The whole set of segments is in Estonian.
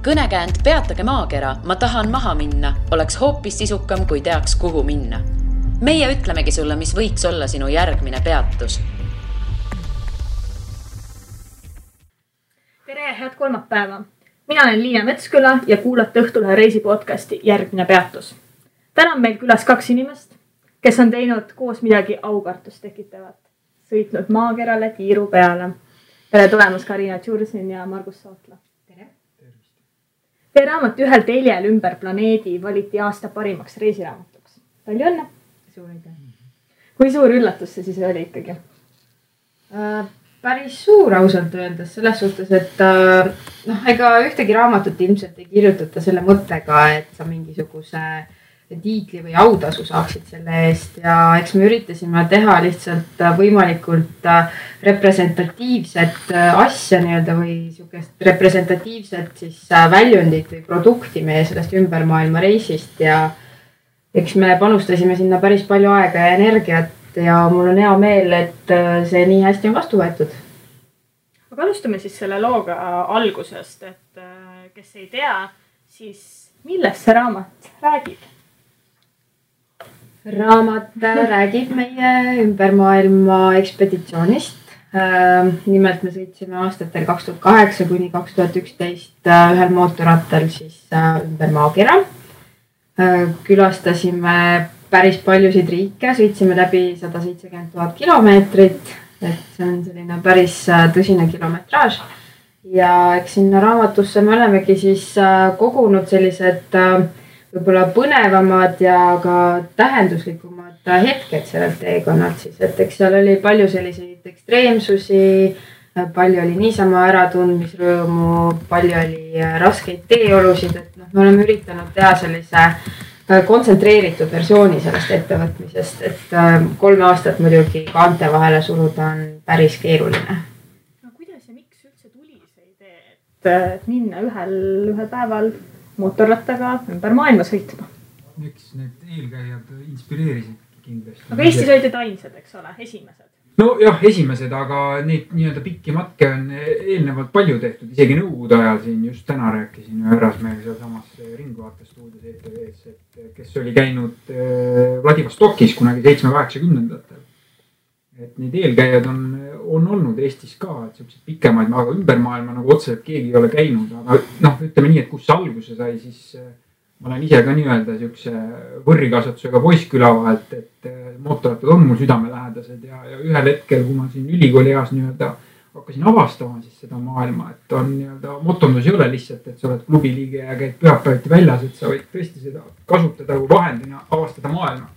Kõnekäänd Peatage maakera, ma tahan maha minna, oleks hoopis sisukam, kui teaks, kuhu minna. Meie ütlemegi sulle, mis võiks olla sinu järgmine peatus. Tere, head kolmapäeva! Mina olen Liina Metsküla ja kuulate Õhtulehe reisipodcasti Järgmine peatus. Täna on meil külas 2 inimest, kes on teinud koos midagi aukartust tekitavat. Sõitnud maakerale tiiru peale. Tere tulemast Karina Tšursin ja Margus Sootla. Tere! Teie raamat Ühel teljel ümber planeedi valiti aasta parimaks reisiraamatuks. Palju õnne! Suur aitäh! Kui suur üllatus see siis oli ikkagi? Päris suur ausalt öeldes selles suhtes, et ega ühtegi raamatut ilmselt ei kirjutata selle mõttega, et sa mingisuguse tiitli või autasu saaksid selle eest ja eks me üritasime teha lihtsalt võimalikult representatiivset asja või sukest representatiivset siis väljundit või produkti meie sellest ümbermaailma reisist ja eks me panustasime sinna päris palju aega ja energiat ja mul on hea meel, et see nii hästi on vastu võetud. Aga alustame siis selle looga algusest, et kes ei tea, siis millest see raamat räägib? Raamat räägib meie ümbermaailma ekspeditsioonist. Nimelt me sõitsime aastatel 2008 kuni 2011 ühel mootorrattal siis ümber maakera. Külastasime päris paljusid riike, sõitsime läbi 170 000 kilomeetrit, et see on selline päris tõsine kilometraaž. Ja eks sinna raamatusse me olemegi siis kogunud sellised võib-olla põnevamad ja ka tähenduslikumad hetked sellelt teekonnalt siis, et eks seal oli palju selliseid ekstreemsusi, palju oli niisama äratundmisrõõmu, palju oli raskeid teeolusid, et me oleme üritanud teha sellise kontsentreeritud versiooni sellest ettevõtmisest, et 3 aastat muidugi kaante vahele suruda on päris keeruline. No kuidas ja miks üldse tuli see idee, et minna ühel päeval mootorrattaga ümber maailma sõitma? Miks need eelkäijad inspireerisid kindlasti? Aga Eestis olid ainsad, eks ole, esimesed? No jah, esimesed, aga neid nii-öelda pikki matke on eelnevalt palju tehtud. Isegi nõukogude ajal siin just täna rääkisin Härrasmehega seal samas Ringvaate-stuudios ETV-s, et kes oli käinud Vladivostokis kunagi 7-80-ndatel. Et neid eelkäijad on olnud Eestis ka, et sellised pikemaid, aga ümbermaailma nagu otseselt keegi ei ole käinud. Aga ütleme nii, et kus see alguse sai, siis ma olen ise ka nii-öelda siukse võrrikasvatusega poissküla vahelt, et mootorrattad on mul südamelähedased ja ühel hetkel, kui ma siin ülikooli eas nii-öelda hakkasin avastama siis seda maailma, et on nii-öelda motondus ei ole lihtsalt, et sa oled klubiliige ja käid pühapäeviti väljas, et sa võid tõesti seda kasutada kui vahendina avastada maailma.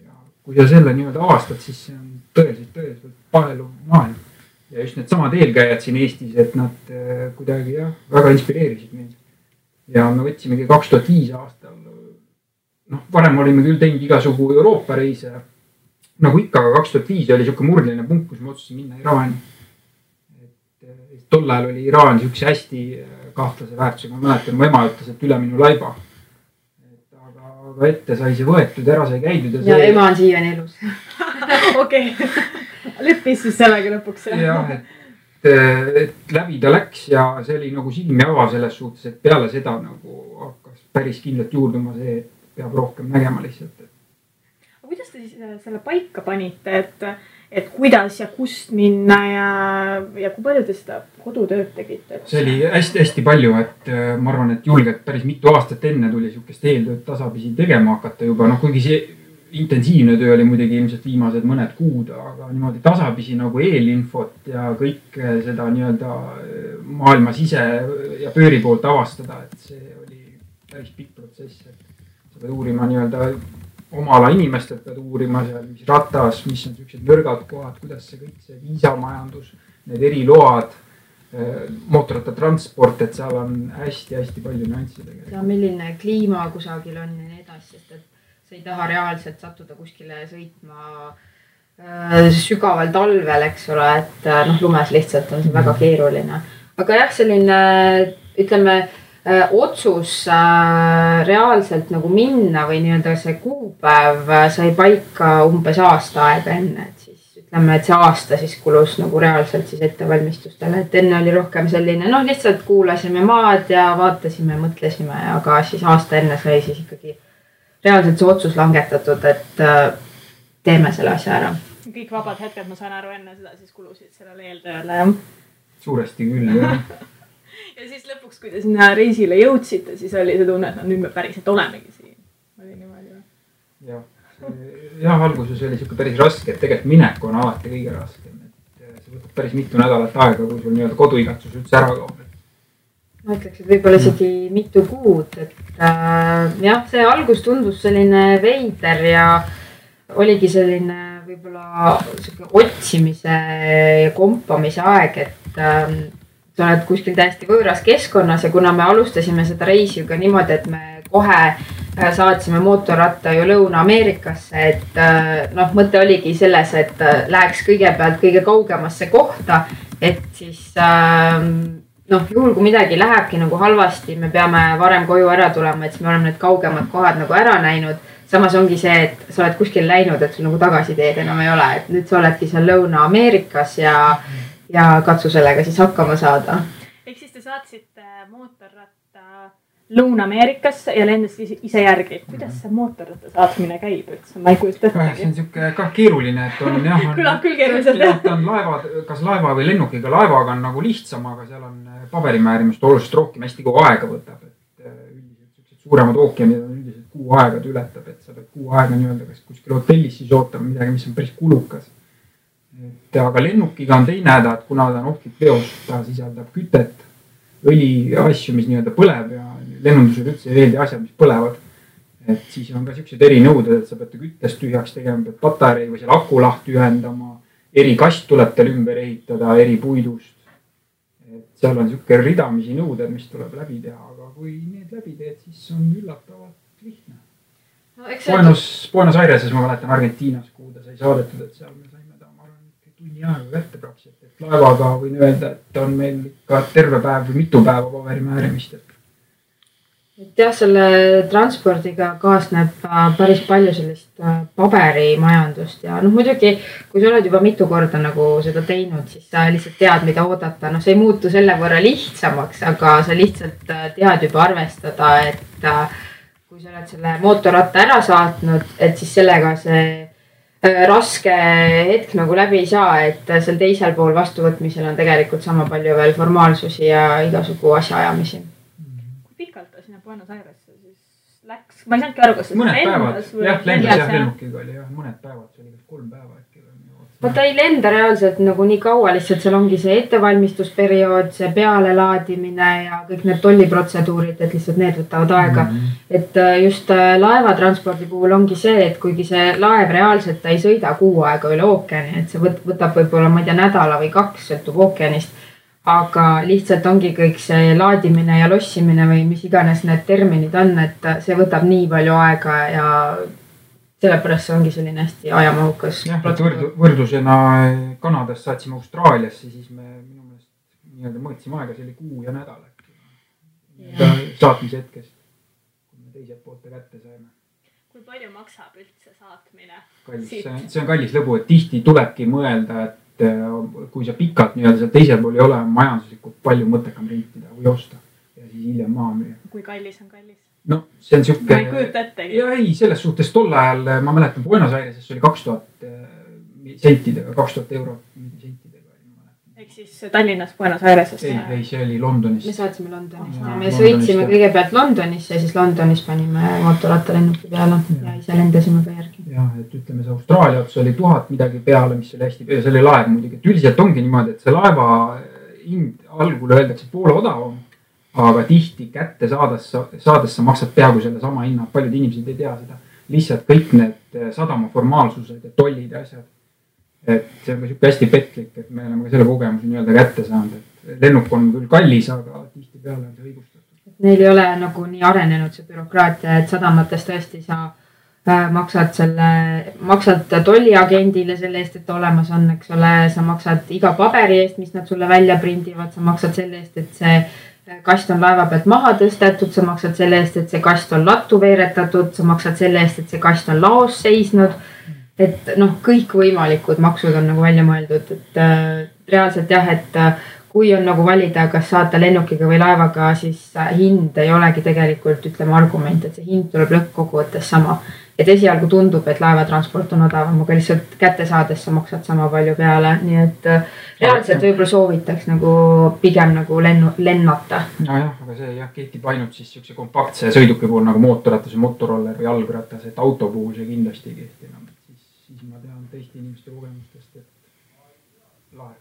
Ja kui sa selle nii-öelda avastad, siis see on tõeliselt paeluv maailm. Ja just need samad eelkäijad siin Eestis, et nad kuidagi väga inspireerisid meid. Ja me võtsimegi 2005 aastal, varem olime küll teinud igasugu Euroopa reise, nagu ikka, aga 2005 oli siuke murdline punkt, kus me otsusin minna Iraani. Et tol ajal oli Iraan siukse hästi kahtlase väärtusega, ma mäletan, mu ema ütles, et üle minu laiba. Aga ette sai see võetud, ära sai käidud. Ja ema on siiani elus. Okei, leppis siis sellega lõpuks. Jah, et läbi ta läks ja see oli nagu silmi ava selles suhtes, et peale seda nagu hakkas päris kindlalt juurduma see, et peab rohkem nägema lihtsalt. Aga kuidas te siis selle paika panite, et kuidas ja kust minna ja kui palju te seda kodutööd tegite? See oli hästi palju, et ma arvan, et julgelt päris mitu aastat enne tuli siukest eeltööd tasapisi tegema hakata juba, kuigi see intensiivne töö oli muidugi ilmselt viimased mõned kuud, aga niimoodi tasapisi nagu eelinfot ja kõik seda nii-öelda maailma sise ja pööri poolt avastada, et see oli päris pikk protsess, et sa pead uurima nii-öelda oma ala inimestelt, pead uurima seal, mis ratas, mis on sellised nõrgad kohad, kuidas see kõik see viisamajandus, need eriload, mootorrattatransport, et seal on hästi palju nüansse tegelikult. Ja milline kliima kusagil on ja nii edasi, sest et sa ei taha reaalselt sattuda kuskile sõitma sügaval talvel, eks ole, et lumes lihtsalt on see väga keeruline. Aga jah, selline, ütleme, otsus reaalselt nagu minna või nii-öelda see kuupäev sai paika umbes aasta aega enne, et siis ütleme, et see aasta siis kulus nagu reaalselt siis ettevalmistustele, et enne oli rohkem selline, lihtsalt kuulasime maad ja vaatasime, mõtlesime, aga siis aasta enne sai siis ikkagi reaalselt see otsus langetatud, et teeme selle asja ära. Kõik vabad hetked, ma saan aru, enne seda siis kulusid sellele eeltööle, jah? Suuresti küll, jah. Ja siis lõpuks, kui te sinna reisile jõudsite, siis oli see tunne, et nüüd me päriselt olemegi siin. Oli niimoodi või? Jah, alguses oli siuke päris raske, et tegelikult minek on alati kõige raskem. Et see võtab päris mitu nädalat aega, kui sul nii-öelda koduigatsus üldse ära kaob. Ma ütleks, et võib-olla isegi mitu kuud, et jah, see algus tundus selline veider ja oligi selline võib-olla otsimise ja kompamise aeg, et sa oled kuskil täiesti võõras keskkonnas ja kuna me alustasime seda reisi ju ka niimoodi, et me kohe saatsime mootorratta ju Lõuna-Ameerikasse, et mõte oligi selles, et läheks kõigepealt kõige kaugemasse kohta, et siis juhul kui midagi lähebki nagu halvasti, me peame varem koju ära tulema, et siis me oleme need kaugemad kohad nagu ära näinud. Samas ongi see, et sa oled kuskil läinud, et sul nagu tagasiteed enam ei ole, et nüüd sa oledki seal Lõuna-Ameerikas ja katsu sellega siis hakkama saada. Ehk siis te saatsite mootorratta Lõuna-Ameerikasse ja lendasid ise järgi. Kuidas see mootorratta saatmine käib üldse? Ma ei kujuta ettegi. See on siuke ka keeruline, et on jah. Kõlab küll keeruliselt. On kas laeva või lennukiga. Laevaga on nagu lihtsam, aga seal on paberimäärimist oluliselt rohkem, hästi kogu aega võtab. Üldiselt suuremad ookeanid on üldiselt kuu aega ületab, et sa pead kuu aega nii-öelda kas kuskil hotellis siis ootama midagi, mis on päris kulukas. Aga lennukiga on teine häda, et kuna ta on ohtlik veos, ta sisaldab kütet, õli asju, mis nii-öelda põleb ja lennundusel üldse ei veeldi asjad, mis põlevad. Et siis on ka siuksed erinõuded, et sa pead küttest tühjaks tegema, pead patarei või seal aku lahti ühendama, eri kast tuleb tal ümber ehitada, eri puidust. Et seal on siuke ridamisi nõuded, mis tuleb läbi teha, aga kui need läbi teed, siis on üllatavalt lihtne. Buenos Aireses ma mäletan Argentiinas, kuhu ta sai saadetud, et seal me saime ta, ma arvan, tunni aega kätte praktiliselt. Et laevaga võin öelda, et on meil ikka terve päev või mitu päeva paberimäärimist. Et jah, selle transpordiga kaasneb päris palju sellist paberimajandust ja muidugi, kui sa oled juba mitu korda nagu seda teinud, siis sa lihtsalt tead, mida oodata. See ei muutu selle võrra lihtsamaks, aga sa lihtsalt tead juba arvestada, et kui sa oled selle mootorratta ära saatnud, et siis sellega see raske hetk nagu läbi ei saa, et seal teisel pool vastuvõtmisel on tegelikult sama palju veel formaalsusi ja igasugu asjaajamisi. Kui pikalt ta sinna Buenos Airesse siis läks? Ma ei saanudki aru, kas mõned päevad, jah, lendas jah, lennukiga oli jah, mõned päevad, see oli 3 päeva äkki. Ta ei lenda reaalselt nagu nii kaua, lihtsalt seal ongi see ettevalmistusperiood, see pealelaadimine ja kõik need tolliprotseduurid, et lihtsalt need võtavad aega. Et just laevatranspordi puhul ongi see, et kuigi see laev reaalselt ta ei sõida kuu aega üle ookeani, et see võtab võib-olla, ma ei tea, nädala või 2, sõltub ookeanist. Aga lihtsalt ongi kõik see laadimine ja lossimine või mis iganes need terminid on, et see võtab nii palju aega ja sellepärast see ongi selline hästi ajamahukas. Jah, võrdlusena Kanadast saatsime Austraaliasse, siis me minu meelest nii-öelda mõõtsime aega, see oli kuu ja nädal äkki. Saatmise hetkest, kui me teiselt poolte kätte saime. Kui palju maksab üldse saatmine? See on kallis lõbu, et tihti tulebki mõelda, et kui sa pikalt nii-öelda seal teisel pool ei ole majanduslikult palju mõttekam rentida või osta ja siis hiljem maha müüa. Kui kallis on kallis? No see on siuke. Ma ei kujuta ettegi. Ja ei, selles suhtes tol ajal ma mäletan Buenos Aireses oli 2000 sentidega, 2000 eurot sentidega. Ehk siis Tallinnas Buenos Aireses? Ei, see oli Londonis. Me saatsime Londonist. Me sõitsime kõigepealt Londonisse ja siis Londonis panime mootorratta lennuki peale ja ise lendasime ka järgi. Jah, et ütleme see Austraalia otsa oli 1000 midagi peale, mis oli hästi peale. See oli laev muidugi, et üldiselt ongi niimoodi, et see laeva hind algul öeldakse poole odavam. Aga tihti kätte saades sa maksad peaaegu selle sama hinna. Paljud inimesed ei tea seda. Lihtsalt kõik need sadama formaalsused ja tollid ja asjad. Et see on ka siuke hästi petlik, et me oleme ka selle kogemuse nii-öelda kätte saanud. Et lennuk on küll kallis, aga tihti peale on see õigustatud. Neil ei ole nagu nii arenenud see bürokraatia, et sadamates tõesti sa maksad tolliagendile selle eest, et olemas on, eks ole, sa maksad iga paberi eest, mis nad sulle välja prindivad, sa maksad selle eest, et see kast on laeva pealt maha tõstetud, sa maksad selle eest, et see kast on lattu veeretatud, sa maksad selle eest, et see kast on laos seisnud. et noh, kõikvõimalikud maksud on nagu välja mõeldud, et reaalselt jah, et kui on nagu valida, kas saata lennukiga või laevaga, siis hind ei olegi tegelikult, ütleme, argument, et see hind tuleb lõppkokkuvõttes sama. Et esialgu tundub, et laevatransport on odavam, aga lihtsalt kätte saades sa maksad sama palju peale, nii et reaalselt võib-olla soovitaks nagu pigem nagu lennata. Nojah, aga see jah, kehtib ainult siis siukse kompaktse sõiduki puhul nagu mootorratas või motorroller või jalgratas, et auto puhul see kindlasti ei kehti enam. Siis ma tean teiste inimeste kogemustest, et laev.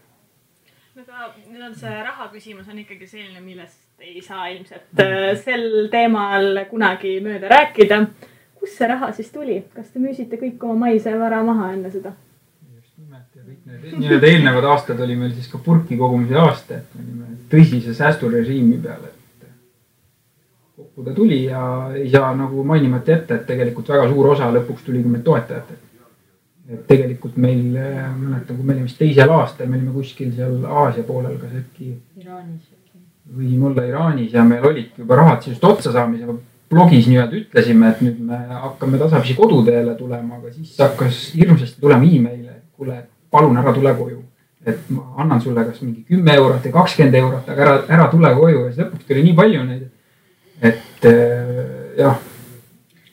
Nüüd on see raha küsimus on ikkagi selline, millest ei saa ilmselt sel teemal kunagi mööda rääkida. Kus see raha siis tuli? Kas te müüsite kõik oma maise vara maha enne seda? Just nimelt ja kõik need eelnevad aastad oli meil siis ka purki kogumise aasta, et me olime tõsise säästurežiimi peale, et kokku ta tuli ja ei saa nagu mainimata jätta, et tegelikult väga suur osa lõpuks tuli ka meil toetajatelt. Et tegelikult meil, mäletan, kui me olime vist teisel aastal, me olime kuskil seal Aasia poolel, kas äkki Iraanis võime olla Iraanis ja meil olid juba rahad just otsa saamisega. Blogis nii-öelda ütlesime, et nüüd me hakkame tasapisi koduteele tulema, aga siis hakkas hirmsasti tulema e-maile, et kuule, palun ära tule koju. Et ma annan sulle kas mingi 10 eurot ja 20 eurot, aga ära tule koju ja siis lõpuks tuli nii palju neid. Et jah.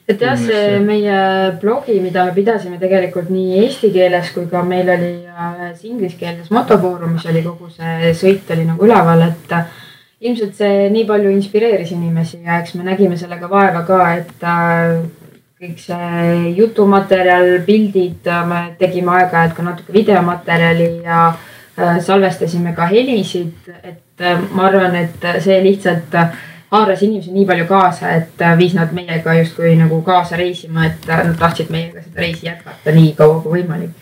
Et jah, see meie blogi, mida me pidasime tegelikult nii eesti keeles, kui ka meil oli inglise keeles motofoorum, mis oli kogu see sõit oli nagu üleval, et ilmselt see nii palju inspireeris inimesi ja eks me nägime sellega vaeva ka, et kõik see jutumaterjal, pildid, me tegime aeg-ajalt ka natuke videomaterjali ja salvestasime ka helisid, et ma arvan, et see lihtsalt haaras inimesi nii palju kaasa, et viis nad meiega justkui nagu kaasa reisima, et nad tahtsid meiega seda reisi jätkata nii kaua kui võimalik.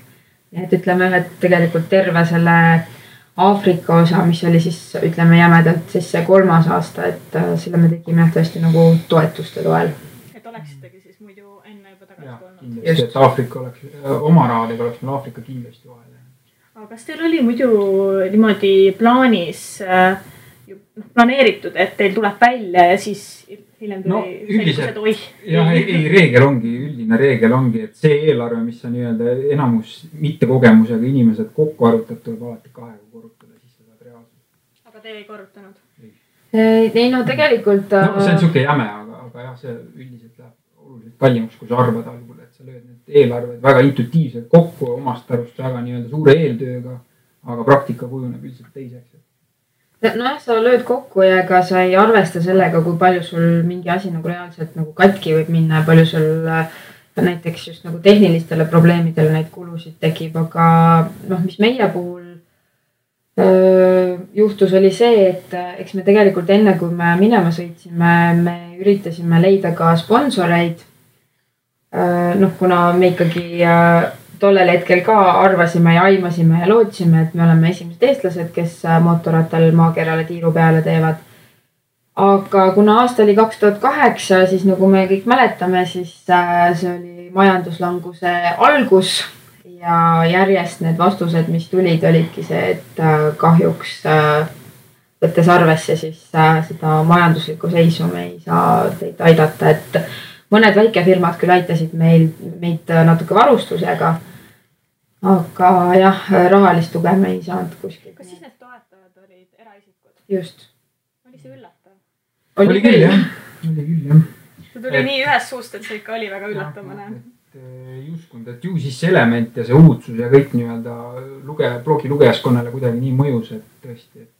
Et ütleme, et tegelikult terve selle Aafrika osa, mis oli siis, ütleme jämedalt, siis see 3. aasta, et selle me tegime tõesti nagu toetuste toel. Et oleksitegi siis muidu enne juba tagasi tulnud. Kindlasti, et Aafrika oleks, oma rahadega oleks meil Aafrika kindlasti vahel. Aga kas teil oli muidu niimoodi plaanis planeeritud, et teil tuleb välja ja siis hiljem tuli üldiselt, jah, üldine reegel ongi, et see eelarve, mis on nii-öelda enamus mitte kogemusega inimesed kokku arvutab, tuleb alati 2 korrutada, siis sa saad reaalselt. Aga te ei korrutanud? Ei, no tegelikult... No see on siuke jäme, aga jah, see üldiselt läheb oluliselt kallimaks, kui sa arvad algul, et sa lööd need eelarved väga intuitiivselt kokku omast arvust väga nii-öelda suure eeltööga, aga praktika kujuneb üldiselt teiseks. Nojah, sa lööd kokku ja ega sa ei arvesta sellega, kui palju sul mingi asi nagu reaalselt nagu katki võib minna ja palju sul näiteks just nagu tehnilistele probleemidele neid kulusid tekib, aga mis meie puhul juhtus oli see, et eks me tegelikult enne, kui me minema sõitsime, me üritasime leida ka sponsoreid. Kuna me ikkagi tollel hetkel ka arvasime ja aimasime ja lootsime, et me oleme esimesed eestlased, kes mootorrattal maakerale tiiru peale teevad. Aga kuna aasta oli 2008, siis nagu me kõik mäletame, siis see oli majanduslanguse algus ja järjest need vastused, mis tulid, olidki see, et kahjuks võttes arvesse siis seda majanduslikku seisu me ei saa teid aidata, et mõned väikefirmad küll aitasid meid natuke varustusega, aga jah, rahalist tuge me ei saanud kuskil. Kas siis need toetajad olid eraisikud? Just. Oli see üllatav? Oli küll, jah. See tuli nii ühest suust, et see ikka oli väga üllatavane. Ei uskunud, et ju siis see element ja see uudsus ja kõik nii-öelda blogi lugejaskonnale kuidagi nii mõjus, et tõesti, et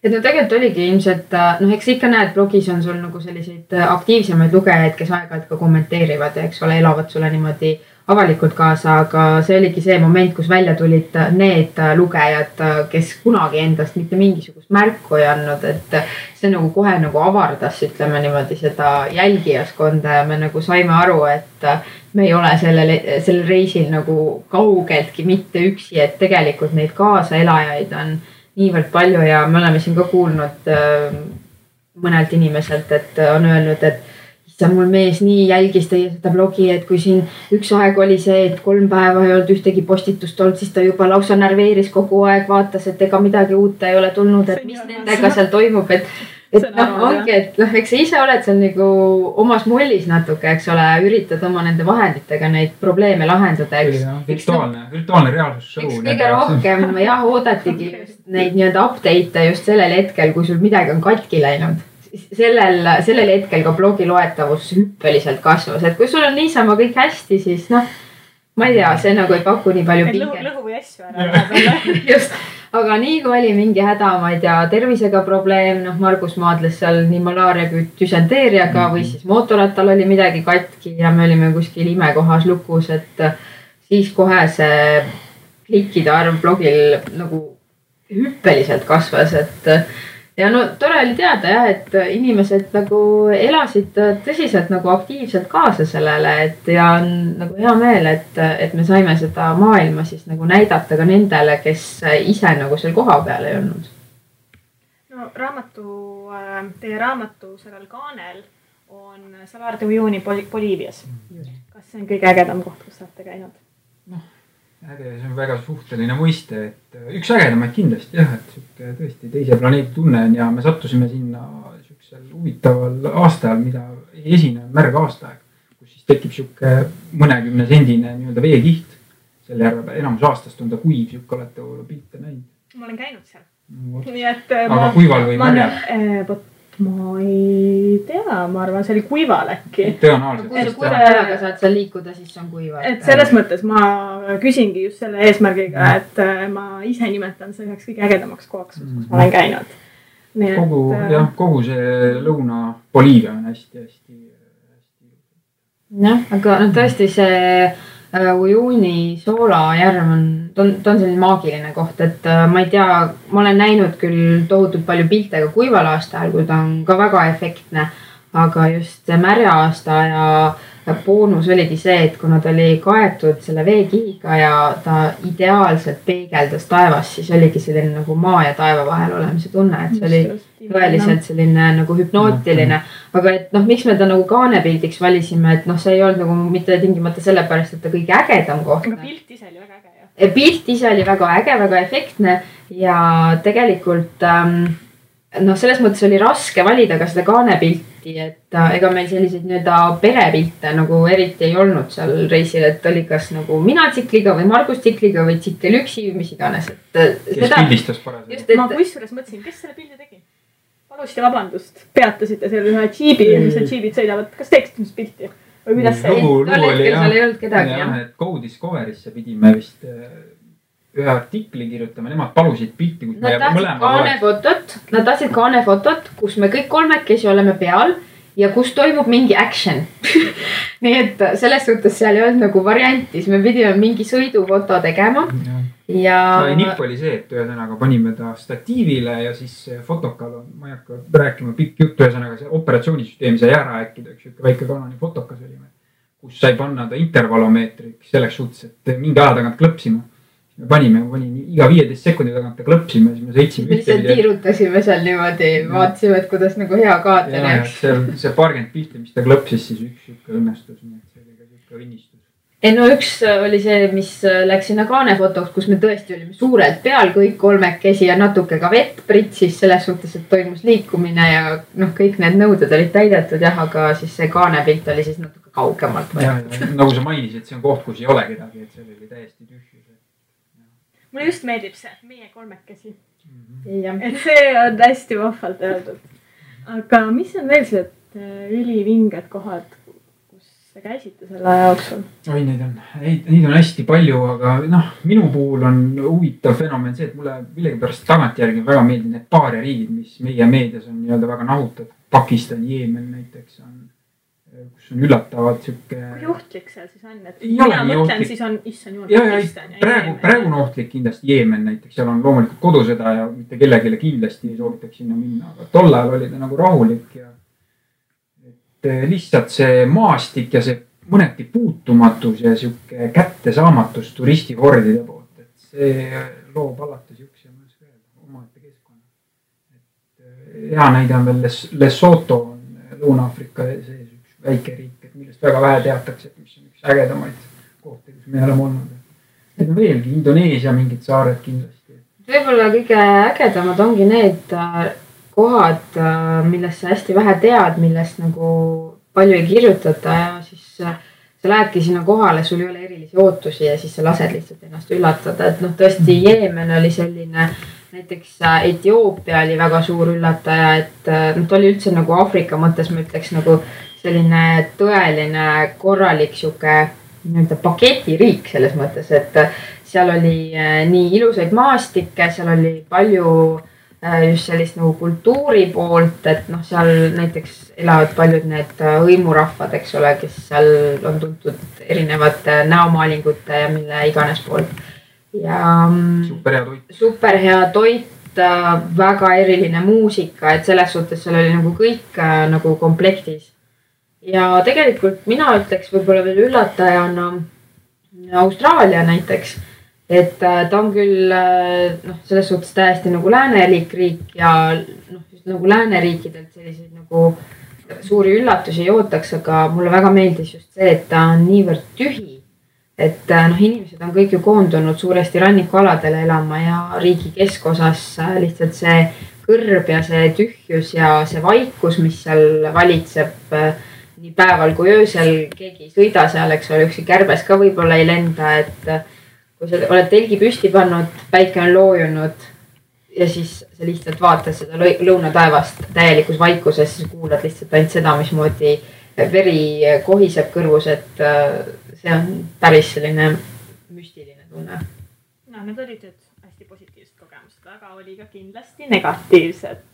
et tegelikult oligi ilmselt, eks ikka näed, blogis on sul nagu selliseid aktiivsemaid lugejaid, kes aeg-ajalt ka kommenteerivad ja eks ole, elavad sulle niimoodi avalikult kaasa, aga see oligi see moment, kus välja tulid need lugejad, kes kunagi endast mitte mingisugust märku ei andnud, et see nagu kohe nagu avardas, ütleme niimoodi seda jälgijaskonda ja me nagu saime aru, et me ei ole sellel reisil nagu kaugeltki mitte üksi, et tegelikult neid kaasaelajaid on niivõrd palju ja me oleme siin ka kuulnud mõnelt inimeselt, et on öelnud, et issand, mul mees nii jälgis teie seda blogi, et kui siin üks aeg oli see, et 3 päeva ei olnud ühtegi postitust olnud, siis ta juba lausa närveeris kogu aeg, vaatas, et ega midagi uut ei ole tulnud, et mis nendega seal toimub, et noh, ongi, et noh, eks sa ise oled seal nagu omas mullis natuke, eks ole, üritad oma nende vahenditega neid probleeme lahendada, eks. Virtuaalne reaalsus show. Eks kõige rohkem jah, oodatigi just neid nii-öelda update'e just sellel hetkel, kui sul midagi on katki läinud. Sellel hetkel ka blogi loetavus hüppeliselt kasvas, et kui sul on niisama kõik hästi, siis noh, ma ei tea, see nagu ei paku nii palju pinget. Lõhu või asju ära. Just, aga nii kui oli mingi häda, ma ei tea, tervisega probleem, noh, Margus maadles seal nii malaaria kui düsenteeriaga või siis mootorrattal oli midagi katki ja me olime kuskil imekohas lukus, et siis kohe see klikkide arv blogil nagu hüppeliselt kasvas, et ja no tore oli teada jah, et inimesed nagu elasid tõsiselt nagu aktiivselt kaasa sellele, et ja on nagu hea meel, et me saime seda maailma siis nagu näidata ka nendele, kes ise nagu seal koha peal ei olnud. No teie raamatu sellel kaanel on Salar de Uyuni Boliivias. Kas see on kõige ägedam koht, kus olete käinud? Äge, see on väga suhteline mõiste, et üks ägedamaid kindlasti jah, et siuke tõesti teise planeedi tunne on ja me sattusime sinna siuksel huvitaval aastal, mida ei esine märg aastaaeg, kus siis tekib siuke mõnekümne sendine nii-öelda veekiht. Selle järve enamus aastast on ta kuiv, siuke olete pilte näinud. Ma olen käinud seal. Nii et aga kuival või märjal? Ma ei tea, ma arvan, see oli kuival äkki. Tõenäoliselt. Kui sa kuivaga saad seal liikuda, siis on kuival. Et selles mõttes ma küsingi just selle eesmärgiga, et ma ise nimetan see üheks kõige ägedamaks kohaks, kus ma olen käinud. Kogu see Lõuna-Boliivia on hästi. Jah, aga tõesti see Uyuni Sola järv ta on selline maagiline koht, et ma ei tea, ma olen näinud küll tohutult palju pilte ka kuival aastal, kui ta on ka väga efektne, aga just märja aasta ja boonus oligi see, et kuna ta oli kaetud selle veekihiga ja ta ideaalselt peegeldas taevast, siis oligi selline nagu maa ja taeva vahel olemise tunne, et see oli tõeliselt selline nagu hüpnootiline, aga et noh, miks me ta nagu kaanepildiks valisime, et noh, see ei olnud nagu mitte tingimata sellepärast, et ta kõige ägedam koht. Aga pilt ise oli väga äge. Pilt ise oli väga äge, väga efektne ja tegelikult noh, selles mõttes oli raske valida ka seda kaanepilti, et ega meil selliseid nii-öelda perepilte nagu eriti ei olnud seal reisil, et oli kas nagu mina tsikliga või Margus tsikliga või tsikkel üksi või mis iganes. Kes pildistas parasjagu. Ma kusjuures mõtlesin, kes selle pildi tegi? Palusite vabandust, peatasite seal ühe džiibi, mis need džiibid sõidavad. Kas teeksid mis pilti? Või kuidas see? Lugu oli jah, ei olnud kedagi, jah. Et Go Discoverisse pidime vist ühe artikli kirjutame, nemad palusid pilti, kus me mõlema nad tahtsid kaanefotot, kus me kõik kolmekesi oleme peal ja kus toimub mingi action. Nii et selles suhtes seal ei olnud nagu varianti, siis me pidime mingi sõidufoto tegema. Ja nipp oli see, et ühesõnaga panime ta statiivile ja siis fotokal on, ma ei hakka rääkima pikk jutt, ühesõnaga see operatsioonisüsteemi sai ära äkkida, üks väike Canoni fotokas olime, kus sai panna ta intervalomeetriks selleks suhtes, et mingi aja tagant klõpsima. Me panime iga 15 sekundi tagant ta klõpsime, siis me sõitsime ühte. Me tiirutasime seal niimoodi, vaatasime, et kuidas nagu hea kaater jääks. See paarkümmend pilti, mis ta klõpsis, siis üks õnnestus, nii et see oli ka siuke õnnistus. No üks oli see, mis läks sinna kaanefotoks, kus me tõesti olime suurelt peal kõik kolmekesi ja natuke ka vett pritsis selles suhtes, et toimus liikumine ja noh, kõik need nõuded olid täidetud jah, aga siis see kaanepilt oli siis natuke kaugemalt. Ja, nagu sa mainisid, see on koht, kus ei ole kedagi, et see oli täiesti tühjus. Mulle just meeldib see, meie kolmekesi. Et see on hästi vahvalt öeldud. Aga mis on veel sellised ülivinged kohad, kus te käisite selle aja jooksul? Oi, neid on hästi palju, aga noh, minu puhul on huvitav fenomen see, et mulle millegipärast tagantjärgi väga meeldib need paaria riigid, mis meie meedias on nii-öelda väga nahutatud. Pakistan, Jeemen näiteks on, kus on üllatavad siuke. Kui ohtlik seal siis on? Et mina mõtlen, siis on issand jumal Pakistan ja Jeemen. Praegu on ohtlik kindlasti Jeemen näiteks. Seal on loomulikult kodusõda ja mitte kellegile kindlasti ei soovitaks sinna minna. Aga tol ajal oli ta nagu rahulik ja et lihtsalt see maastik ja see mõneti puutumatus ja siuke kättesaamatus turistihordide poolt. Et see loob alati siukse omaette keskkonna. Et hea näide on veel Lesotho on Lõuna-Aafrika sees. Väike riik, et millest väga vähe teatakse, et mis on üks ägedamaid kohti, kus me oleme olnud. Need on veelgi Indoneesia mingid saared kindlasti. Võib-olla kõige ägedamad ongi need kohad, millest sa hästi vähe tead, millest nagu palju ei kirjutata ja siis sa lähedki sinna kohale, sul ei ole erilisi ootusi ja siis sa lased lihtsalt ennast üllatada, et noh, tõesti Jeemen oli selline, näiteks Etioopia oli väga suur üllataja, et noh, ta oli üldse nagu Aafrika mõttes, ma ütleks nagu selline tõeline korralik sihuke nii-öelda paketiriik selles mõttes, et seal oli nii ilusaid maastikke, seal oli palju just sellist nagu kultuuri poolt, et noh, seal näiteks elavad paljud need hõimurahvad, eks ole, kes seal on tuntud erinevate näomaalingute ja mille iganes poolt. Ja super hea toit, väga eriline muusika, et selles suhtes seal oli nagu kõik nagu komplektis. Ja tegelikult mina ütleks võib-olla veel üllatajana Austraalia näiteks, et ta on küll noh, selles suhtes täiesti nagu läänelik riik ja noh, just nagu lääneriikidelt selliseid nagu suuri üllatusi ei ootaks, aga mulle väga meeldis just see, et ta on niivõrd tühi, et noh, inimesed on kõik ju koondunud suuresti rannikualadele elama ja riigi keskosas lihtsalt see kõrb ja see tühjus ja see vaikus, mis seal valitseb nii päeval kui öösel, keegi ei sõida seal, eks ole, üksi kärbes ka võib-olla ei lenda, et kui sa oled telgi püsti pannud, päike on loojunud ja siis sa lihtsalt vaatad seda lõunataevast täielikus vaikuses, siis kuulad lihtsalt ainult seda, mismoodi veri kohiseb kõrvus, et see on päris selline müstiline tunne. No, need olid nüüd hästi positiivsed kogemused, aga oli ka kindlasti negatiivsed.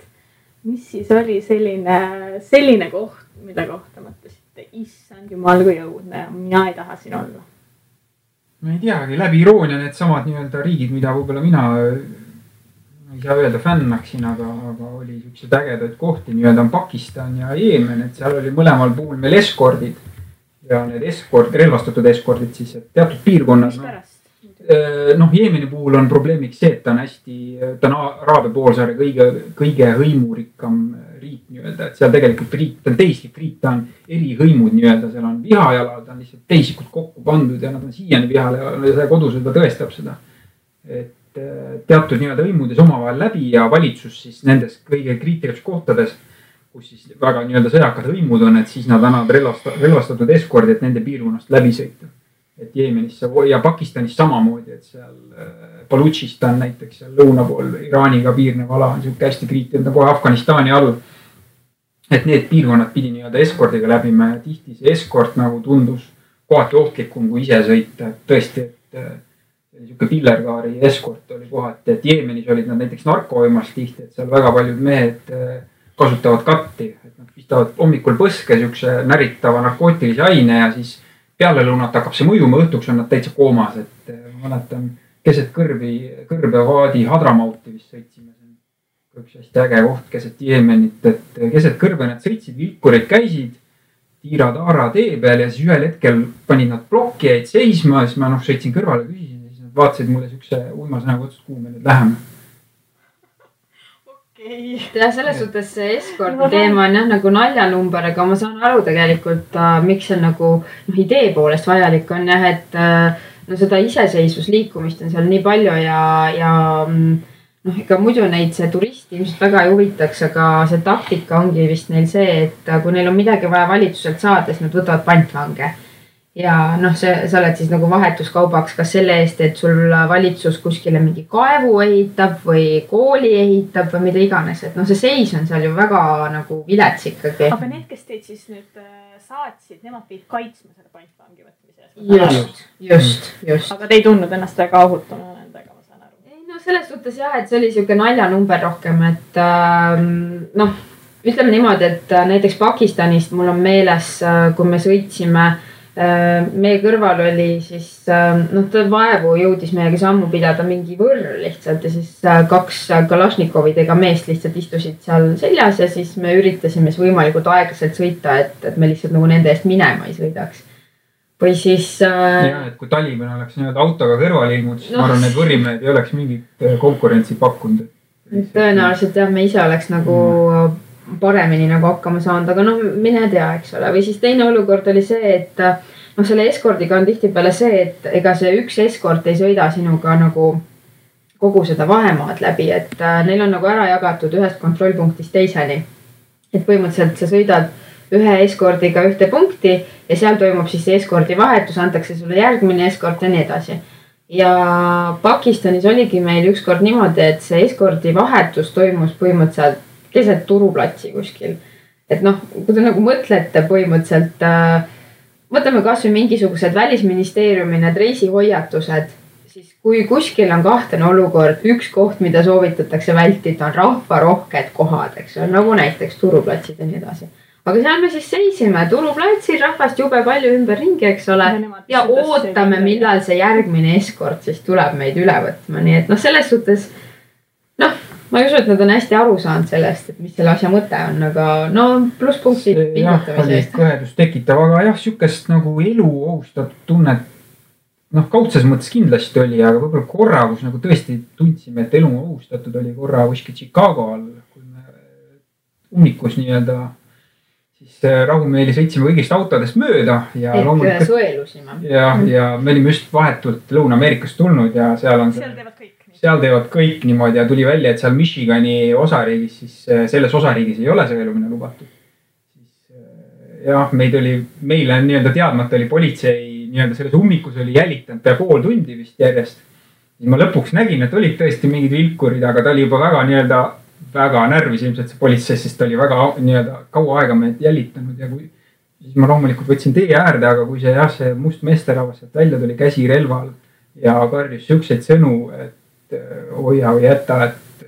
Mis siis oli selline koht, mida kohta mõtlesite, issand jumal kui õudne ja mina ei taha siin olla? Ma ei teagi, läbi iroonia need samad nii-öelda riigid, mida võib-olla mina ei saa öelda fännaksin, aga oli siuksed ägedad kohti, nii-öelda on Pakistan ja Jeemen, et seal oli mõlemal puhul meil eskordid ja need relvastatud eskordid siis, et teatud piirkonnad. Noh, Jeemeni puhul on probleemiks see, et ta on Araabia poolsaare kõige hõimurikkam riik nii-öelda, et seal tegelikult ta on teislik riik, ta on eri hõimud nii-öelda, seal on vihajalal, ta on lihtsalt teisikud kokku pandud ja nad on siiani vihajalal ja see kodusõda tõestab seda. Et teatud nii-öelda hõimudes omavahel läbi ja valitsus siis nendes kõige kriitilistes kohtades, kus siis väga nii-öelda sõjakad hõimud on, et siis nad annavad relvastatud eskordi, et nende piirkonnast läbi sõita. Et Jeemenisse ja Pakistanis samamoodi, et seal Balutšistan näiteks seal lõuna pool Iraaniga piirnev ala on siuke hästi kriitiline kohe Afganistani all. Et need piirkonnad pidi nii-öelda eskordiga läbima ja tihti see eskord nagu tundus kohati ohtlikum kui ise sõita. Et tõesti, et siuke pillerkaari eskord oli kohati, et Jeemenis olid nad näiteks narkovõimas tihti, et seal väga paljud mehed kasutavad katti, et nad pistavad hommikul põske siukse näritava narkootilise aine ja siis peale lõunat hakkab see mõjuma, õhtuks on nad täitsa koomas, et ma mäletan keset kõrbevaadi Hadramauti vist sõitsime. See on üks hästi äge koht keset Jeemenit, et keset kõrbe nad sõitsid, vilkurid käisid tiira-taara tee peal ja siis ühel hetkel panid nad plokki, jäid seisma ja siis ma sõitsin kõrvale, küsisin ja siis nad vaatasid mulle siukse uimasõnaga otsast, kuhu me nüüd läheme. Ja selles suhtes see eskordi teema on jah nagu naljanumber, aga ma saan aru tegelikult, miks see nagu idee poolest vajalik on jah, et no seda iseseisvusliikumist on seal nii palju ja noh, ega muidu neid see turist ilmselt väga ei huvitaks, aga see taktika ongi vist neil see, et kui neil on midagi vaja valitsuselt saada, siis nad võtavad pantvange. Ja noh, sa oled siis nagu vahetuskaubaks kas selle eest, et sul valitsus kuskile mingi kaevu ehitab või kooli ehitab või mida iganes, et noh, see seis on seal ju väga nagu vilets ikkagi. Aga need, kes teid siis nüüd saatsid, nemad teid kaitsma selle pantvangi võtmise? Just. Aga te ei tundnud ennast väga ohutuna nendega, ma saan aru? Ei, no selles suhtes jah, et see oli siuke naljanumber rohkem, et noh, ütleme niimoodi, et näiteks Pakistanist mul on meeles, kui me sõitsime meie kõrval oli siis, noh, ta vaevu jõudis meiega sammu pidada mingi võrr lihtsalt ja siis 2 Kalašnikovidega meest lihtsalt istusid seal seljas ja siis me üritasime võimalikult aeglaselt sõita, et me lihtsalt nagu nende eest minema ei sõidaks. Või siis... Ja, et kui Taliban oleks nii-öelda autoga kõrval ilmud, siis ma arvan, need võrimehed ei oleks mingit konkurentsi pakkunud. Tõenäoliselt jah, me ise oleks nagu... paremini nagu hakkama saanud, aga noh, mine tea, eks ole. Või siis teine olukord oli see, et noh, selle eskordiga on tihtipeale see, et ega see üks eskord ei sõida sinuga nagu kogu seda vahemaad läbi, et neil on nagu ära jagatud ühest kontrollpunktist teiseni. Et põhimõtteliselt sa sõidad ühe eskordiga ühte punkti ja seal toimub siis see eskordi vahetus, antakse sulle järgmine eskord ja nii edasi. Ja Pakistanis oligi meil ükskord niimoodi, et see eskordi vahetus toimus põhimõtteliselt keset turuplatsi kuskil. Et noh, kui te nagu mõtlete põhimõtteliselt, võtame kas või mingisugused välisministeeriumi need reisihoiatused, siis kui kuskil on kahtlane olukord, üks koht, mida soovitatakse vältida, on rahvarohked kohad, eks ole, nagu näiteks turuplatsid ja nii edasi. Aga seal me siis seisime turuplatsil, rahvast jube palju ümberringi, eks ole, ja ootame, millal see järgmine eskord siis tuleb meid üle võtma. Nii et noh, selles suhtes, noh, ma ei usu, et nad on hästi aru saanud sellest, et mis selle asja mõte on, aga no plusspunktid pingutamise eest. Kõhedust tekitav, aga jah, sükest nagu elu ohustatud tunnet, noh, kaudses mõttes kindlasti oli, aga võib-olla korra, kus nagu tõesti tundsime, et elu ohustatud oli korra kuskil Chicago all, kui me ummikus nii-öelda siis rahumeeli sõitsime kõigist autodest mööda ja loomulikult sõelusime. Ja me olime just vahetult Lõuna-Ameerikast tulnud ja seal on seal teevad kõik niimoodi ja tuli välja, et seal Michigani osariigis, siis selles osariigis ei ole sõelumine lubatud. Jah, meile nii-öelda teadmata oli politsei nii-öelda selles ummikus oli jälitanud pea pool tundi vist järjest. Ma lõpuks nägin, et olid tõesti mingid vilkurid, aga ta oli juba väga närvis ilmselt see politsei, sest ta oli väga nii-öelda kaua aega meid jälitanud ja siis ma loomulikult võtsin tee äärde, aga kui see must meesterahvas sealt välja tuli käsi relval ja karjus sükseid sõnu, et hoia või jäta, et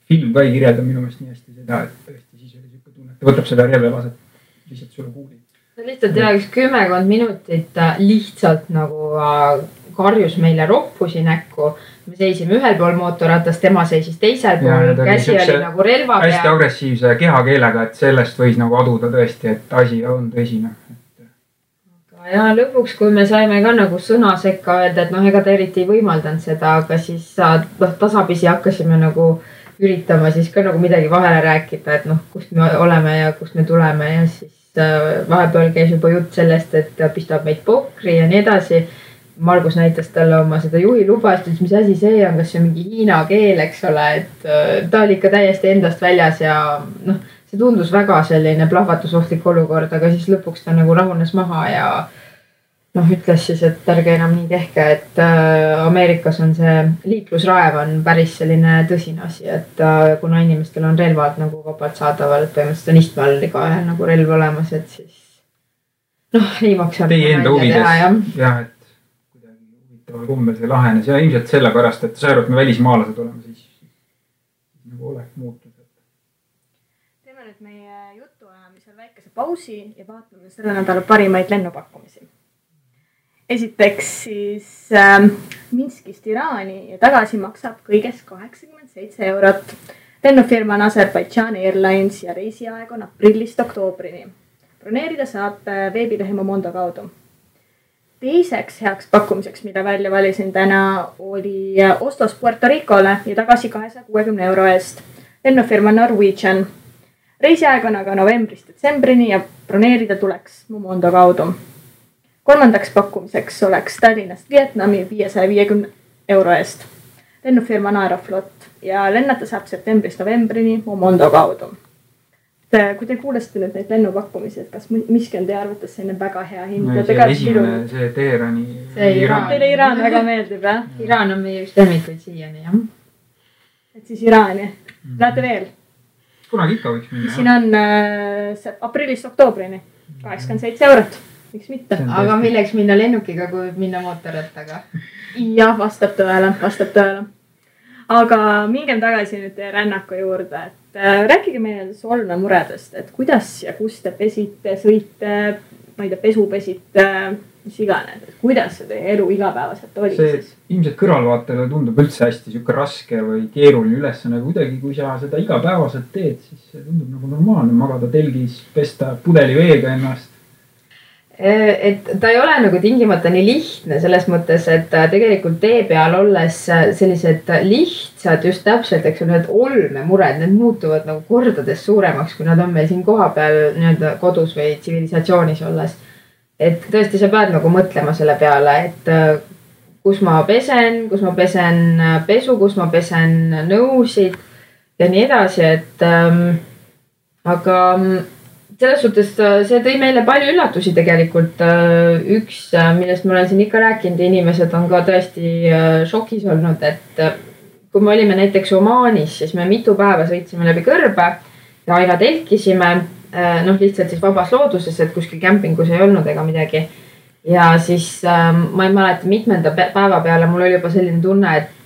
film ka ei kirjelda minu meelest nii hästi seda, et tõesti siis oli siuke tunne, et võtab selle relva laseb lihtsalt sulle kuuli. Lihtsalt üks 10 minutit lihtsalt nagu karjus meile roppusi näkku. Me seisime ühel pool mootorratast, tema seisis teisel pool, käsi oli nagu relva pea. Hästi agressiivse kehakeelega, et sellest võis nagu aduda tõesti, et asi on tõsine. Ja lõpuks, kui me saime ka nagu sõna sekka öelda, et noh, ega ta eriti ei võimaldanud seda, aga siis tasapisi hakkasime nagu üritama siis ka nagu midagi vahele rääkida, et noh, kust me oleme ja kust me tuleme ja siis vahepeal käis juba jutt sellest, et pistab meid pokri ja nii edasi. Margus näitas talle oma seda juhi lubast, et mis asi see on, kas see on mingi hiina keel, eks ole, et ta oli ikka täiesti endast väljas ja noh, see tundus väga selline plahvatusohtlik olukord, aga siis lõpuks ta nagu rahunes maha ja noh, ütles siis, et ärge enam nii tehke, et Ameerikas on see liiklusraev on päris selline tõsine asi, et kuna inimestel on relvad nagu vabalt saadaval, et põhimõtteliselt on istmel iga nagu relv olemas, et siis noh, ei maksa. Teie enda huvides, jah, et kuidagi huvitaval kumbel see lahenes ja ilmselt sellepärast, et sa arvad, me välismaalased oleme, siis nagu oleks muutud. Teeme nüüd meie jutuajamisel väikese pausi ja vaatame selle nädala parimaid lennupakkumisi. Esiteks siis Minskist Iraani ja tagasi maksab kõigest 87 €. Lennufirma on Azerbaijan Airlines ja reisiaeg on aprillist oktoobrini. Broneerida saab veebilehe Momondo kaudu. Teiseks heaks pakkumiseks, mida välja valisin täna, oli Oslost Puerto Ricole ja tagasi 260 € eest. Lennufirma Norwegian. Reisiaeg on aga novembrist detsembrini ja broneerida tuleks Momondo kaudu. Kolmandaks pakkumiseks oleks Tallinnast Vietnami 550 € eest. Lennufirma on Aeroflot ja lennata saab septembrist novembrini Momondo kaudu. Kui te kuulesite nüüd neid lennupakkumisi, et kas miski on teie arvates selline väga hea hind? Esimene, see Teherani. Teile Iraan väga meeldib, jah? Iraan on meie just lemmikuid siiani, jah. Et siis Iraani. Lähete veel? Kunagi ikka võiks minna. Siin on aprillist oktoobrini 87 €. Miks mitte? Aga milleks minna lennukiga, kui minna mootorrattaga? Jah, vastab tõele. Aga mingem tagasi nüüd teie rännaku juurde, et rääkige meile Solna muredest, et kuidas ja kus te pesite, sõite, ma ei tea, pesu pesite, mis iganes, et kuidas see teie elu igapäevaselt oli see siis? Ilmselt kõrvalvaatele tundub üldse hästi siuke raske või keeruline ülesanne, kuidagi kui sa seda igapäevaselt teed, siis see tundub nagu normaalne magada telgis, pesta pudeli veega ennast. Et ta ei ole nagu tingimata nii lihtne selles mõttes, et tegelikult tee peal olles sellised lihtsad just täpselt, eks ole, need olmemured, need muutuvad nagu kordades suuremaks, kui nad on meil siin koha peal nii-öelda kodus või tsivilisatsioonis olles. Et tõesti sa pead nagu mõtlema selle peale, et kus ma pesen pesu, kus ma pesen nõusid ja nii edasi, et aga selles suhtes see tõi meile palju üllatusi tegelikult. Üks, millest ma olen siin ikka rääkinud, inimesed on ka tõesti šokis olnud, et kui me olime näiteks Omaanis, siis me mitu päeva sõitsime läbi kõrbe ja aina telkisime, lihtsalt siis vabas looduses, et kuskil kämpingus ei olnud ega midagi. Ja siis ma ei mäleta mitmenda päeva peale mul oli juba selline tunne, et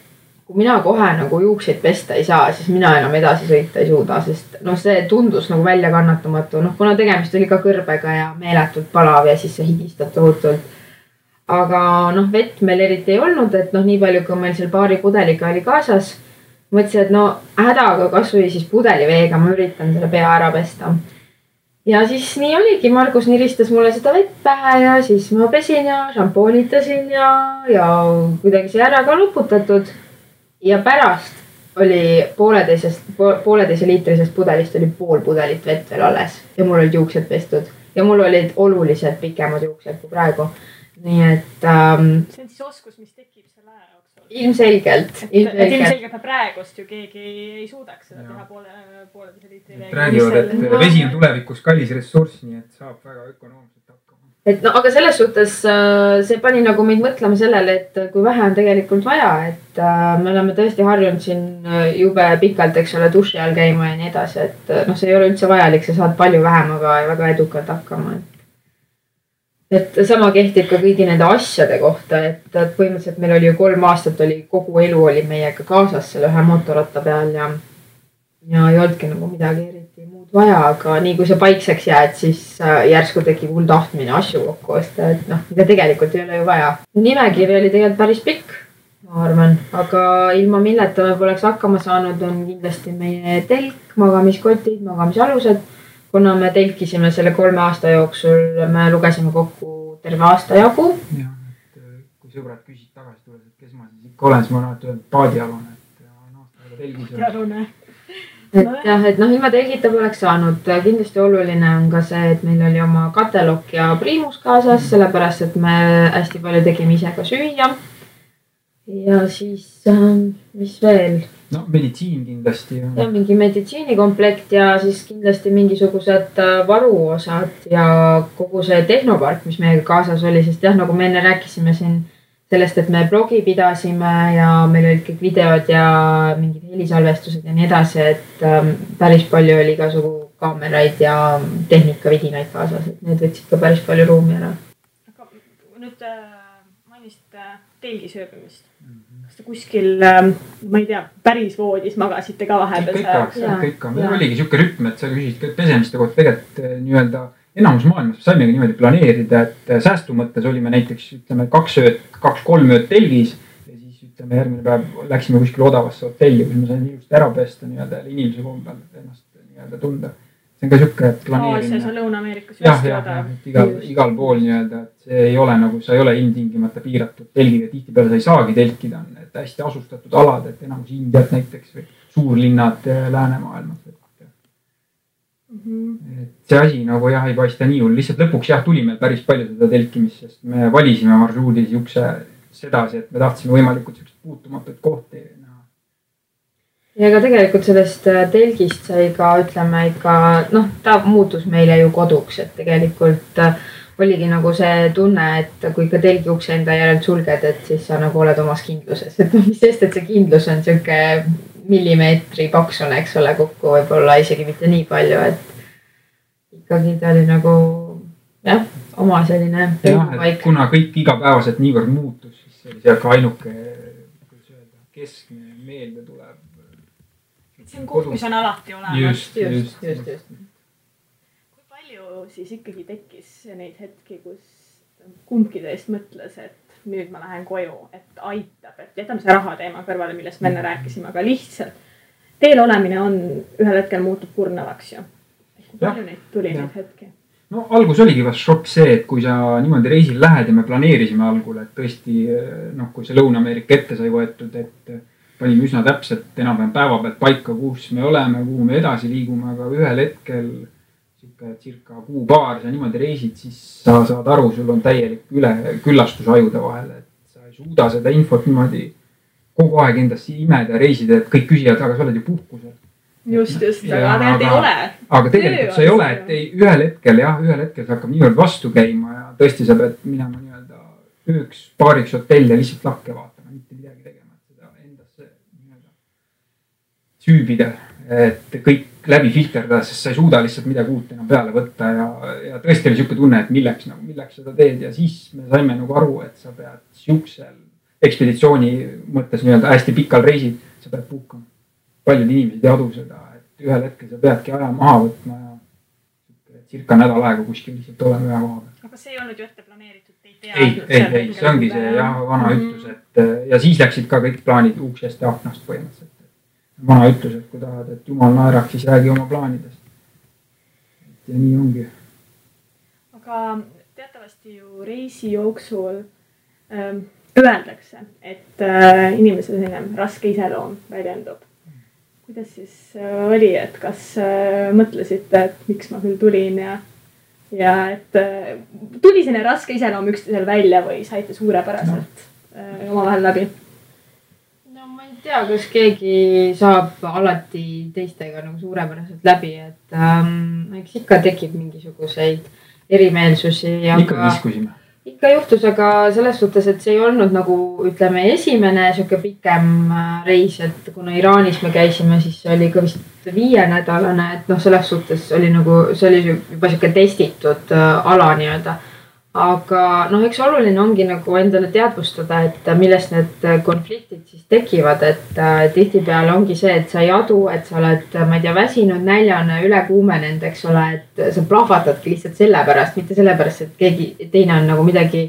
kui mina kohe nagu juukseid pesta ei saa, siis mina enam edasi sõita ei suuda, sest see tundus nagu välja kannatamatu. Kuna tegemist oli ka kõrbega ja meeletult palav ja siis see higistab tohutult. Aga vett meil eriti ei olnud, et nii palju, kui meil seal paari pudeliga oli kaasas. Mõtlesin, et hädaga kasvõi siis pudeliveega ma üritan selle pea ära pesta. Ja siis nii oligi, Margus niristas mulle seda vett pähe ja siis ma pesin ja šampoonitasin ja kuidagi see ära ka luputatud. Ja pärast oli pooleteise liitrisest pudelist oli pool pudelit vett veel alles ja mul olid juuksed pestud ja mul olid oluliselt pikemad juuksed kui praegu. Nii et see on siis oskus, mis tekib selle aja jooksul. Ilmselgelt praegust ju keegi ei suudaks seda teha pooleteise liitri veega. Räägivad, et vesi on tulevikus kallis ressurss, nii et saab väga ökonoomselt hakkama. Aga selles suhtes see pani nagu meid mõtlema sellele, et kui vähe on tegelikult vaja, et me oleme tõesti harjunud siin jube pikalt, eks ole, duši all käima ja nii edasi, et see ei ole üldse vajalik, sa saad palju vähem, aga väga edukalt hakkama. Et sama kehtib ka kõigi nende asjade kohta, et põhimõtteliselt meil oli ju 3 aastat kogu elu oli meiega kaasas selle ühe mootorratta peal ja ei olnudki nagu midagi eriti muud vaja, aga nii kui see paikseks jääd, siis järsku tekib hull tahtmine asju kokku osta, et mida tegelikult ei ole ju vaja. Nimekiri oli tegelikult päris pikk, ma arvan, aga ilma milleta me poleks hakkama saanud, on kindlasti meie telk, magamiskotid, magamisalused. Kuna me telkisime selle 3 aasta jooksul, me lugesime kokku terve aasta jagu. Ja, kui sõbrad küsid tagasi tulevad, et kes ma siis ikka olen, siis ma olen öelnud paadialune, et aastaga telgis. Paadialune. Et jah, et ilma telgita poleks saanud. Kindlasti oluline on ka see, et meil oli oma katelok ja priimus kaasas, sellepärast, et me hästi palju tegime ise ka süüa. Ja siis, mis veel? Meditsiin kindlasti. Ja mingi meditsiinikomplekt ja siis kindlasti mingisugused varuosad ja kogu see tehnopark, mis meiega kaasas oli, sest jah, nagu me enne rääkisime siin sellest, et me blogi pidasime ja meil olid kõik videod ja mingid helisalvestused ja nii edasi, et päris palju oli igasugu kaameraid ja tehnikavidinaid kaasas, et need võtsid ka päris palju ruumi ära. Aga nüüd mainisite telgisööbimist. Kas te kuskil, ma ei tea, päris voodis magasite ka vahepeal? Ikka. Meil oligi siuke rütm, et sa küsisid pesemiste kohta tegelikult nii-öelda enamus maailmas saimegi niimoodi planeerida, et säästu mõttes olime näiteks 2-3 ööd telgis ja siis järgmine päev läksime kuskil odavasse hotelli, kus me sain ilusti ära pesta nii-öelda inimese kombel ennast nii-öelda tunda. See on ka siuke planeerimine. See on Lõuna-Ameerikas. Jah, igal pool nii-öelda, et see ei ole nagu, sa ei ole ilmtingimata piiratud telgiga, tihtipeale sa ei saagi telkida, on et hästi asustatud alad, et enamus Indiat näiteks või suurlinnad läänemaailmas. Et see asi nagu jah, ei paista nii hull, lihtsalt lõpuks jah, tuli meil päris palju seda telkimist, sest me valisime marsruudis jukse sedasi, et me tahtsime võimalikult puutumatuid kohti. Ja ka tegelikult sellest telgist sai ka, ütleme ikka, ta muutus meile ju koduks, et tegelikult oligi nagu see tunne, et kui ka telgi ukse enda järelt sulged, et siis sa nagu oled omas kindluses, et mis sest, et see kindlus on siuke millimeetri paksune, eks ole, kokku võib-olla isegi mitte nii palju, et ikkagi ta oli nagu jah, oma selline paik. Kuna kõik igapäevaselt niivõrd muutus, siis see oli ka ainuke keskne meelde tuleb. See on koht, mis on alati olemas. Just. Kui palju siis ikkagi tekkis neid hetki, kus kumbki teist mõtles, et nüüd ma lähen koju, et aitab, et jätame see raha teema kõrvale, millest me enne rääkisime, aga lihtsalt teel olemine on ühel hetkel muutub kurnavaks ju. Kui palju neid tuli neid hetki? Algus oligi vast šokk see, et kui sa niimoodi reisil lähed ja me planeerisime algul, et tõesti, kui see Lõuna-Ameerika ette sai võetud, et panime üsna täpselt enam-vähem päeva pealt paika, kus me oleme, kuhu me edasi liigume, aga ühel hetkel circa kuu-paar sa niimoodi reisid, siis sa saad aru, sul on täielik küllastus ajude vahel, et sa ei ei suuda seda infot niimoodi kogu aeg endast imeda ja reisida, et kõik küsivad, aga sa oled ju puhkusel. Just, aga tegelikult ei ole. Aga tegelikult sa ei ole, et ühel hetkel see hakkab niivõrd vastu käima ja tõesti sa pead minema nii-öelda ööks paariks hotelli ja lihtsalt lakke vaatama, mitte midagi tegema, et seda endasse nii-öelda süübida, et kõik läbi filterdada, sest sa ei suuda lihtsalt midagi uut enam peale võtta ja tõesti oli siuke tunne, et milleks seda teed ja siis me saime nagu aru, et sa pead siuksel ekspeditsiooni mõttes nii-öelda hästi pikal reisil, sa pead puhkama. Paljud inimesed ei adu seda, et ühel hetkel sa peadki aja maha võtma ja circa nädal aega kuskil lihtsalt olema ühe koha peal. Aga see ei olnud ju ette planeeritud, te ei teadnud. Ei, see ongi see vana ütlus, et ja siis läksid ka kõik plaanid uksest ja aknast põhimõtteliselt. Vana ütlus, et kui tahad, et jumal naeraks, siis räägi oma plaanidest. Ja nii ongi. Aga teatavasti ju reisi jooksul öeldakse, et inimese selline raske iseloom väljendub. Kuidas siis oli, et kas mõtlesite, et miks ma küll tulin ja et tuli selline raske iseloom üksteisel välja või saite suurepäraselt omavahel läbi? No ma ei tea, kas keegi saab alati teistega nagu suurepäraselt läbi, et eks ikka tekib mingisuguseid erimeelsusi. Ikka kiskusime. Ikka juhtus, aga selles suhtes, et see ei olnud nagu, ütleme, esimene siuke pikem reis, et kuna Iraanis me käisime, siis see oli ka vist 5-nädalane, et selles suhtes oli nagu, see oli juba siuke testitud ala nii-öelda. Aga eks oluline ongi nagu endale teadvustada, et millest need konfliktid siis tekivad, et tihtipeale ongi see, et sa ei adu, et sa oled, ma ei tea, väsinud, näljane, ülekuumenenud, eks ole, et sa plahvatadki lihtsalt sellepärast, mitte sellepärast, et keegi teine on nagu midagi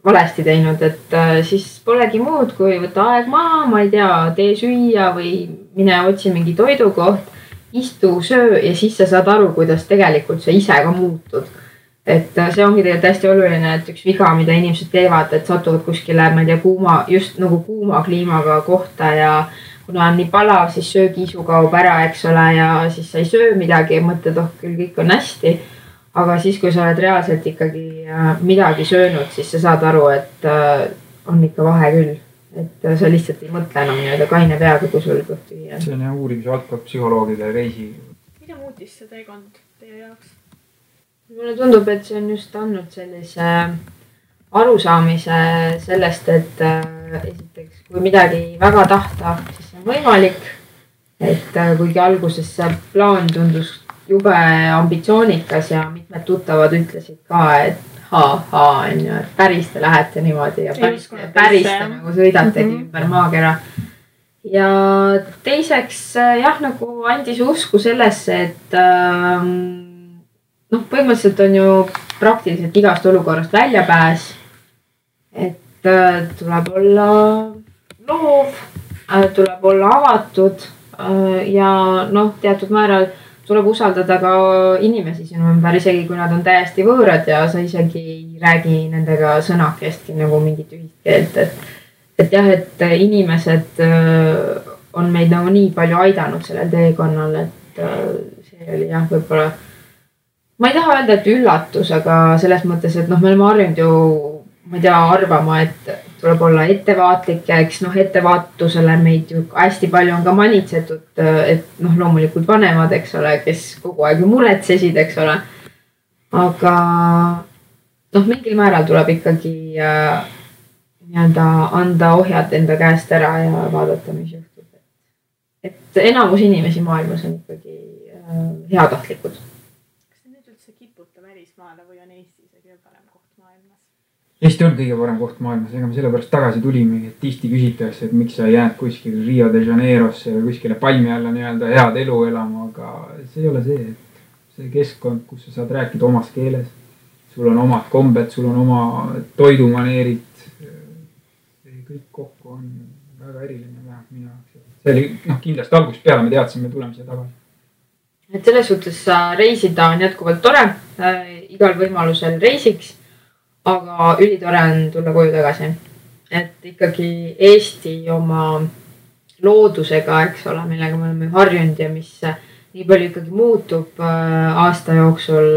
valesti teinud, et siis polegi muud, kui võtta aeg maha, ma ei tea, tee süüa või mine otsi mingi toidukoht, istu, söö ja siis sa saad aru, kuidas tegelikult sa ise ka muutud. Et see ongi tegelikult hästi oluline, et üks viga, mida inimesed teevad, et satuvad kuskile, ma ei tea, just nagu kuuma kliimaga kohta ja kuna on nii palav, siis söögiisu kaob ära, eks ole, ja siis sa ei söö midagi ja mõtled, küll kõik on hästi. Aga siis, kui sa oled reaalselt ikkagi midagi söönud, siis sa saad aru, et on ikka vahe küll. Et sa lihtsalt ei mõtle enam nii-öelda kaine peaga, kui sul kõht tühi on. See on uurimise valdkond psühholoogide reisi. Mida muutis see teekond teie jaoks? Mulle tundub, et see on just andnud sellise arusaamise sellest, et esiteks, kui midagi väga tahta, siis see on võimalik. Et kuigi alguses see plaan tundus jube ambitsioonikas ja mitmed tuttavad ütlesid ka, et on ju, et päris te lähete niimoodi ja päris te nagu sõidategi ümber maakera. Ja teiseks nagu andis usku sellesse, et põhimõtteliselt on ju praktiliselt igast olukorrast väljapääs, et tuleb olla loov, tuleb olla avatud ja teatud määral tuleb usaldada ka inimesi sinu ümber, isegi kui nad on täiesti võõrad ja sa isegi ei räägi nendega sõnakestki nagu mingit ühist keelt, et jah, et inimesed on meid nagu nii palju aidanud sellel teekonnal, et see oli jah, võib-olla ma ei taha öelda, et üllatus, aga selles mõttes, et me oleme harjunud ju, ma ei tea, arvama, et tuleb olla ettevaatlik ja eks ettevaatusele meid ju hästi palju on ka manitsetud, et loomulikult vanemad, eks ole, kes kogu aeg ju muretsesid, eks ole. Aga mingil määral tuleb ikkagi nii-öelda anda ohjad enda käest ära ja vaadata, mis juhtub. Et enamus inimesi maailmas on ikkagi heatahtlikud. Või on Eesti kõige parem koht maailmas? Eesti on kõige parem koht maailmas, ega me sellepärast tagasi tulime, et tihti küsitakse, et miks sa jääd kuskil Rio de Janeirosse või kuskile palmi alla nii-öelda head elu elama, aga see ei ole see, et see keskkond, kus sa saad rääkida omas keeles, sul on omad kombed, sul on oma toidumaneerid, see kõik kokku on väga eriline vähemalt minu jaoks. See oli kindlasti algusest peale me teadsime, me tuleme siia tagasi. Et selles suhtes reisida on jätkuvalt tore, igal võimalusel reisiks, aga ülitore on tulla koju tagasi. Et ikkagi Eesti oma loodusega, eks ole, millega me oleme harjunud ja mis nii palju ikkagi muutub aasta jooksul.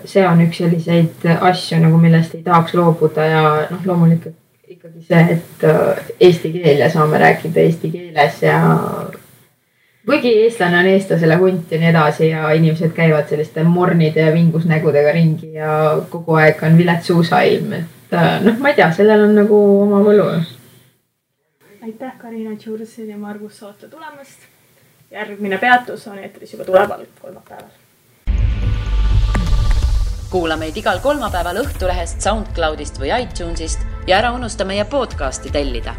See on üks selliseid asju, nagu millest ei tahaks loobuda ja loomulikult ikkagi see, et eesti keel ja saame rääkida eesti keeles ja kuigi eestlane on eestlasele hunt ja nii edasi ja inimesed käivad selliste mornide ja vingusnägudega ringi ja kogu aeg on vilets suusailm, et ma ei tea, sellel on nagu oma võlu. Aitäh Karina Tšursin ja Margus saate tulemast. Järgmine peatus on eetris juba tuleval kolmapäeval. Kuula meid igal kolmapäeval Õhtulehest, SoundCloudist või iTunesist ja ära unusta meie podcasti tellida.